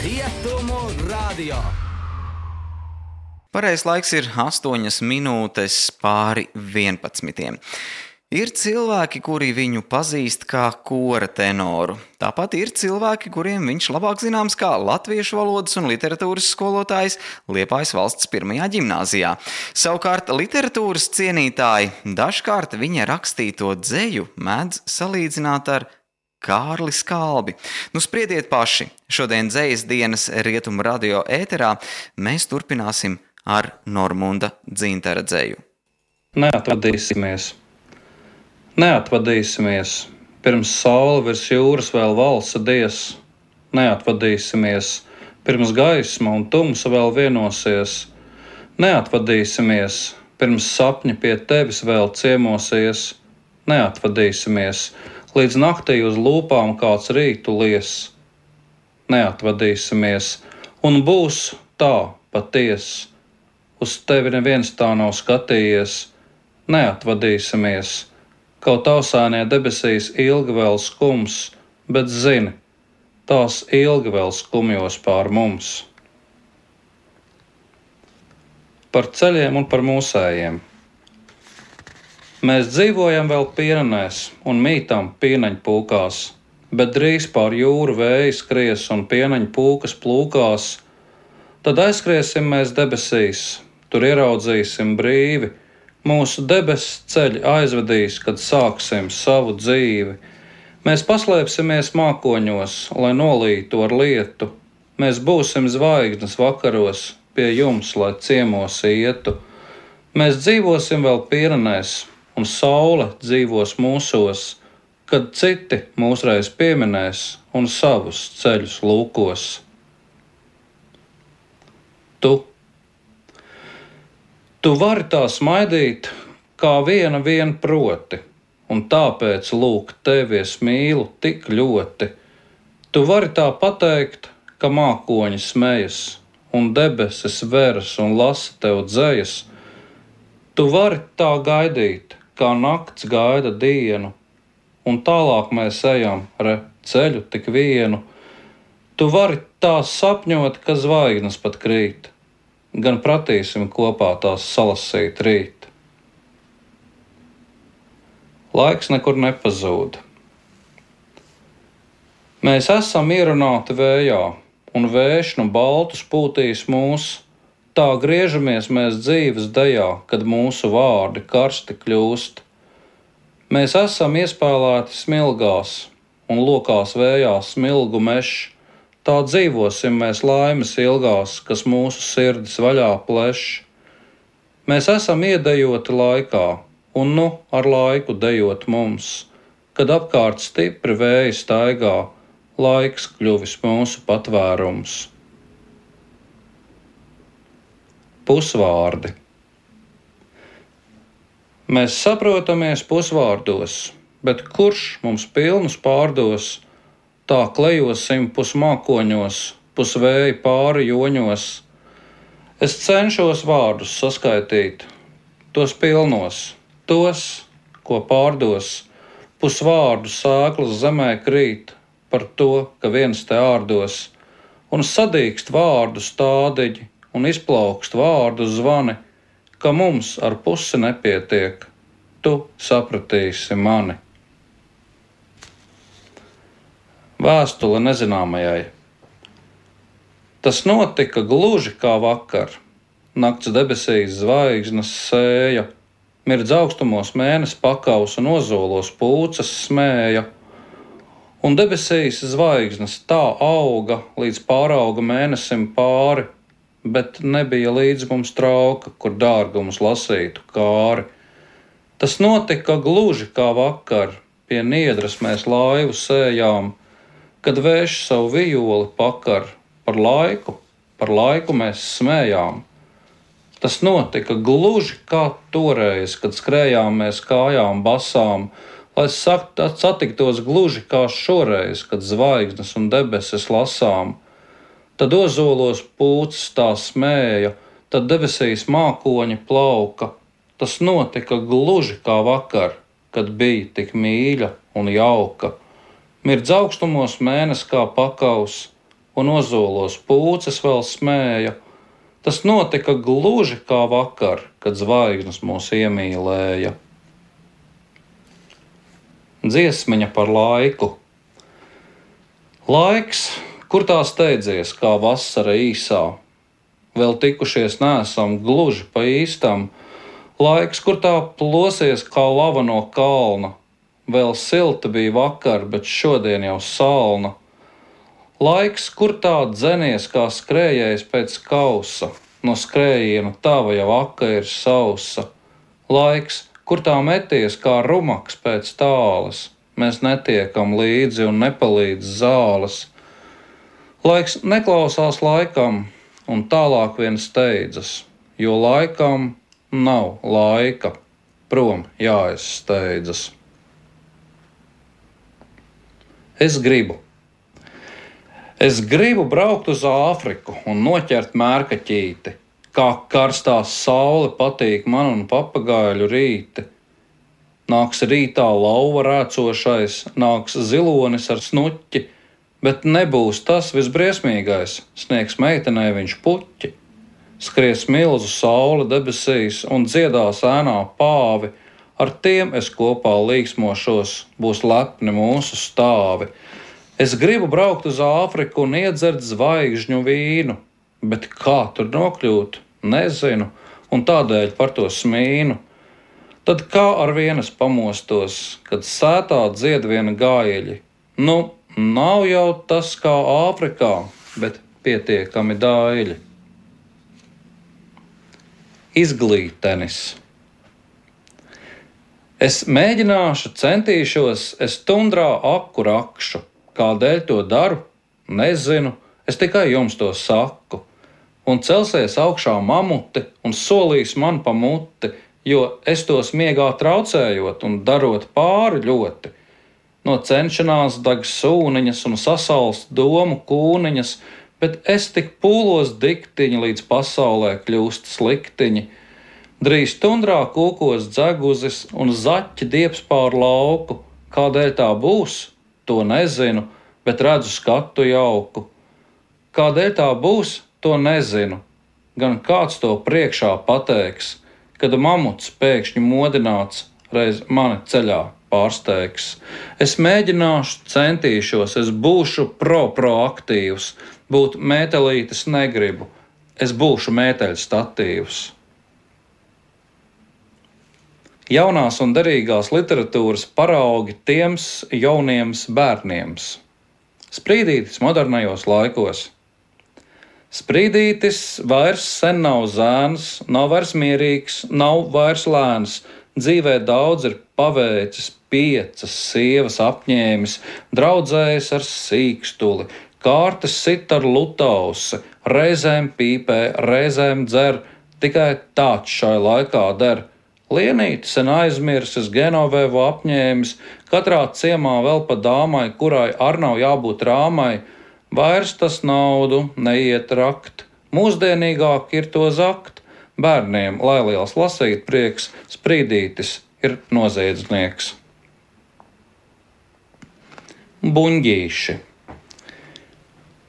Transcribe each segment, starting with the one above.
Rietumu radio. Pareizais laiks ir 8 minūtes pāri 11. Ir cilvēki, kuri viņu pazīst kā kora tenoru. Tāpat ir cilvēki, kuriem viņš labāk zināms kā latviešu valodas un literatūras skolotājs Liepājas valsts 1. ģimnāzijā. Savukārt literatūras cienītāji dažkārt viņa rakstīto dzeju mēdz salīdzināt ar Kārli Skalbi. Spriediet paši. Šodien dzejas dienas Rietumu radio ēterā mēs turpināsim ar Normunda Dzintara dzeju. Neatvadīsimies, pirms saule virs jūras vēl valsa dies. Neatvadīsimies, pirms gaisma un tumsa vēl vienosies. Neatvadīsimies, pirms sapņi pie tevis vēl ciemosies. Neatvadīsimies, līdz naktī uz lūpām kāds rītu lies. Neatvadīsimies, un būs tā paties. Uz tevi neviens tā nav skatījies. Neatvadīsimies, kaut ausainie debesīs ilgi vēl skums, bet zini, tās ilgi vēl skumjos pār mums. Par ceļiem un par mūsējiem. Mēs dzīvojam vēl pienenēs un mītam pieneņpūkās, bet drīz pār jūru vēji skries un pieneņpūkas plūkās. Tad aizskriesim mēs debesīs, tur ieraudzīsim brīvi. Mūsu debesu ceļi aizvedīs, kad sāksim savu dzīvi. Mēs paslēpsimies mākoņos, lai nolītu ar lietu. Mēs būsim zvaigznes vakaros, pie jums, lai ciemos ietu. Mēs dzīvosim vēl pienenēs, un saule dzīvos mūsos, kad citi mūsreiz pieminēs un savus ceļus lūkos. Tu vari tā smaidīt, kā viena vien proti, un tāpēc lūk tevi es mīlu tik ļoti. Tu vari tā pateikt, ka mākoņi smejas, un debesis veras un lasa tev dzejas. Tu vari tā gaidīt, kā nakts gaida dienu, un tālāk mēs ejam ceļu tik vienu. Tu vari tā sapņot, ka zvaigznes pat krīt, gan pratīsim kopā tās salasīt rīt. Laiks nekur nepazūd. Mēs esam ierunāti vējā, un vējš no baltus pūtīs mūs. Tā griežamies mēs dzīves dejā, kad mūsu vārdi karsti kļūst. Mēs esam iespēlēti smilgās, un lokās vējā smilgu mešs. Tā dzīvosim mēs laimes ilgās, kas mūsu sirdis vaļā pleš. Mēs esam iedejoti laikā, un ar laiku dejot mums, kad apkārt stipri vēji staigā, laiks kļuvis mūsu patvērums. Pusvārdi. Mēs saprotamies pusvārdos, bet kurš mums pilnus pārdos? Tā klejosim pusmākoņos, pusvēja pāri joņos. Es cenšos vārdus saskaitīt, tos pilnos, tos, ko pārdos. Pusvārdu sēklas zemē krīt par to, ka viens te ārdos, un sadīkst vārdu stādiņi un izplaukst vārdu zvani, ka mums ar pusi nepietiek, tu sapratīsi mani. Vēstule nezināmajai. Tas notika gluži kā vakar. Nakts debesīs zvaigznes sēja, mirdz augstumos mēness pakaus un ozolos pūces smēja. Un debesīs zvaigznes tā auga, līdz pārauga mēnesim pāri, bet nebija līdz mums trauka, kur dārgumus lasītu kāri. Tas notika gluži kā vakar, pie niedras mēs laivu sējām, kad vējš savu vijoli pakar, par laiku mēs smējām. Tas notika gluži kā toreiz, kad skrējām mēs kājām basām, lai satiktos gluži kā šoreiz, kad zvaigznes un debesis lasām. Tad ozolos pūces tā smēja, tad debesīs mākoņi plauka. Tas notika gluži kā vakar, kad bija tik mīļa un jauka. Mirdz augstumos mēnesis kā pakaus, un ozolos pūces vēl smēja. Tas notika gluži kā vakar, kad zvaigznes mūs iemīlēja. Dziesmiņa par laiku. Laiks, kur tā steidzies, kā vasara īsā. Vēl tikušies neesam gluži pa īstam. Laiks, kur tā plosies kā lava no kalna. Vēl silta bija vakar, bet šodien jau salna. Laiks, kur tā dzenies kā skrējējs pēc kausa. No skrējiena tava jau aka ir sausa. Laiks, kur tā meties kā rumaks pēc tāles. Mēs netiekam līdzi un nepalīdz zāles. Laiks neklausās laikam un tālāk vien steidzas, jo laikam nav laika, prom jāizsteidzas. Es gribu braukt uz Āfriku un noķert mērkaķīti, kā karstā saule patīk man un papagaiļu rīti. Nāks rītā lauva rēcošais, nāks zilonis ar snuķi, bet nebūs tas visbriesmīgais, sniegs meitenei viņš puķi. Skries milzu saule debesīs un dziedās ēnā pāvi, ar tiem es kopā līksmošos, būs lepni mūsu stāvi. Es gribu braukt uz Āfriku un iedzert zvaigžņu vīnu, bet kā tur nokļūt, nezinu, un tādēļ par to smīnu. Tad kā ar vienas pamostos, kad sētā dzied viena gājeļi. Nu, nav jau tas kā Āfrikā, bet pietiekami dāļi. Izglītenis. Es mēģināšu, centīšos, es tundrā aku rakšu. Kādēļ to daru? Nezinu, es tikai jums to saku. Un celsies augšā mamuti un solīs man pa muti, jo es tos miegā traucējot un darot pāri ļoti. No cenšanās dag sūniņas un sasalst domu kūniņas, bet es tik pūlos diktiņi, līdz pasaulē kļūst sliktiņi. Drīz tundrā kūkos dzeguzis un zaķi dieps pār lauku. Kādēļ tā būs? To nezinu, bet redzu skatu jauku. Kādēļ tā būs? To nezinu. Gan kāds to priekšā pateiks, kad mamuts pēkšņi modināts reiz mani ceļā pārsteigs. Es mēģināšu, centīšos, es būšu proaktīvs, būt mētelītis negribu, es būšu mēteļu statīvs. Jaunās un derīgās literatūras paraugi tiems jauniem bērniem. Sprīdītis modernajos laikos. Sprīdītis vairs sen nav zēns, nav vairs mierīgs, nav vairs lēns. Dzīvē daudz ir paveicis, 5 sievas apņēmis, draudzējis ar sīkstuli, kārtas sit ar lutausi, reizēm pīpē, reizēm dzer, tikai tāds šai laikā der. Lienīti sen aizmirsis, Genovevu apņēmis, katrā ciemā vēl pa dāmai, kurai ar nav jābūt rāmai. Vairs tas naudu neiet rakt, mūsdienīgāk ir to zakt. Bērniem, lai liels lasīt prieks, sprīdītis ir noziedznieks. Buņģīši.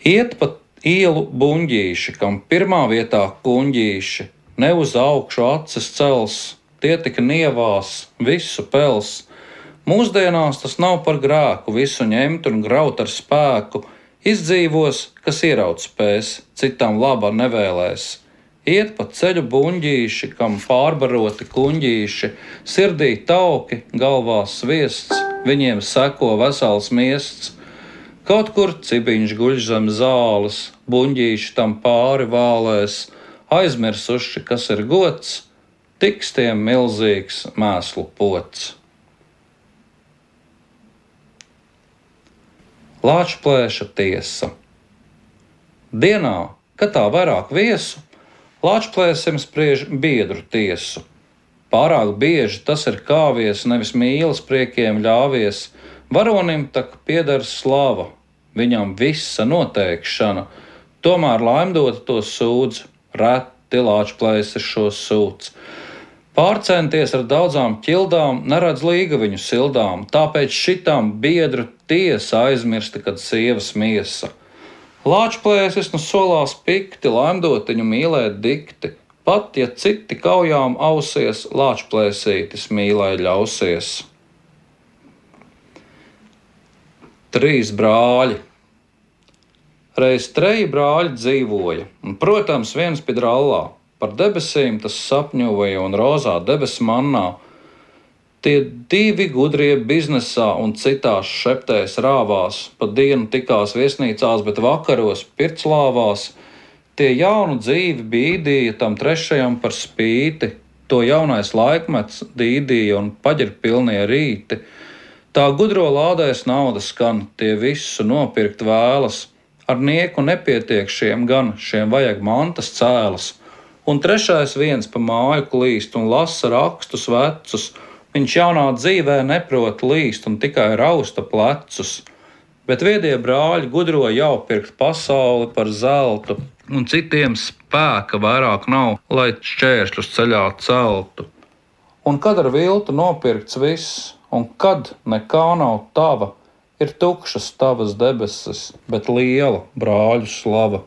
Iet pa ielu buņģīši, kam pirmā vietā kuņģīši, ne uz augšu acis cels, tie tik nievās, visu pels. Mūsdienās tas nav par grēku, visu ņemt un graut ar spēku. Izdzīvos, kas ieraut spēs, citam labā nevēlēs. Iet pa ceļu buņģīši, kam pārbaroti kuņģīši, sirdī tauki, galvā sviests, viņiem seko vesels miests. Kaut kur cibiņš guļ zem zāles, buņģīši tam pāri vālēs, aizmirsuši, kas ir gods, tiks tiem milzīgs mēslu pots. Lāčplēša tiesa. Dienā, kad tā vairāk viesu, lāčplēsim spriež biedru tiesu. Pārāk bieži tas ir kāvies, nevis mīlas priekiem ļāvies. Varonim tak pieder slava, viņam visa noteikšana. Tomēr laimdota to sūdz, reti lāčplēsis šo sūdz. Pārcenties ar daudzām ķildām, neredz līgaviņu sildām, tāpēc šitām biedru tiesa aizmirsta, kad sievas miesa. Lāčplēsis nu solās pikti, laimdotiņu mīlēt dikti, pat ja citi kaujām ausies, lāčplēsītis mīlē ļausies. 3 brāļi. Reiz 3 brāļi dzīvoja, un, protams, viens pie drallā. Par debesīm tas sapņoja un rozā debesu mannā. Tie 2 gudrie biznesā un citās šeptēs rāvās, pa dienu tikās viesnīcās, bet vakaros pirclāvās. Tie jaunu dzīvi bīdīja tam 3. par spīti, to jaunais laikmets dīdīja un paģirpilnie rīti. Tā gudro lādēs naudas skan, tie visu nopirkt vēlas, ar nieku nepietiek šiem gan, šiem vajag mantas cēlas. Un 3. viens pa māju klīst un lasa rakstus vecus, viņš jaunā dzīvē neprot līst un tikai rausta plecus. Bet viedie brāļi gudro jau pirkt pasauli par zeltu, un citiem spēka vairāk nav, lai šķēršļus ceļā celtu. Un kad ar viltu nopirkts viss, un kad nekā nav tava, ir tukšas tavas debesis, bet liela brāļu slava.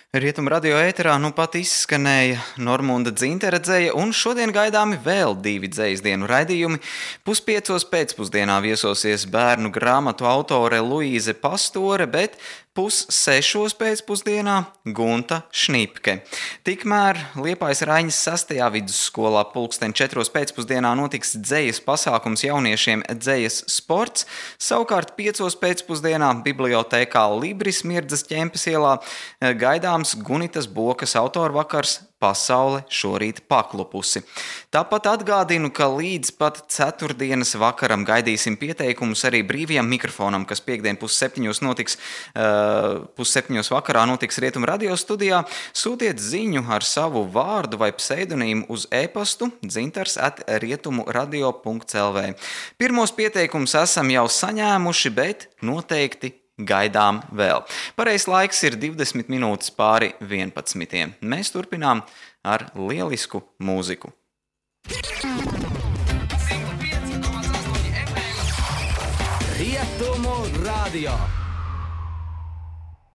Rietumu radio ēterā nu pat izskanēja Normunda Dzintere dzeja, un šodien gaidāmi vēl 2 dzejas dienu raidījumi. 4:30 pēcpusdienā viesosies bērnu grāmatu autore Luīze Pastore, bet 5:30 pēcpusdienā Gunta Šnipke. Tikmēr Liepājas Raiņas 6. vidusskolā 4:00 pēcpusdienā notiks dzejas pasākums jauniešiem dzejas sports, savukārt 5:00 pēcpusdienā bibliotēkā Libris Mirdzas ķempes ielā gaidāms Gunitas Bokas autoru vakars Pasaule šorīt paklupusi. Tāpat atgādinu, ka līdz pat ceturtdienas vakaram gaidīsim pieteikumus arī brīvajam mikrofonam, kas piektdien 6:30 notiks, 6:30 vakarā notiks Rietumu radio studijā. Sūtiet ziņu ar savu vārdu vai pseidonīmu uz e-pastu dzintars@rietumuradio.lv. Pirmos pieteikumus esam jau saņēmuši, bet noteikti gaidām vēl. Pareizs laiks ir 20 minūtes pāri 11. Mēs turpinām ar lielisku mūziku. Rietumu radio.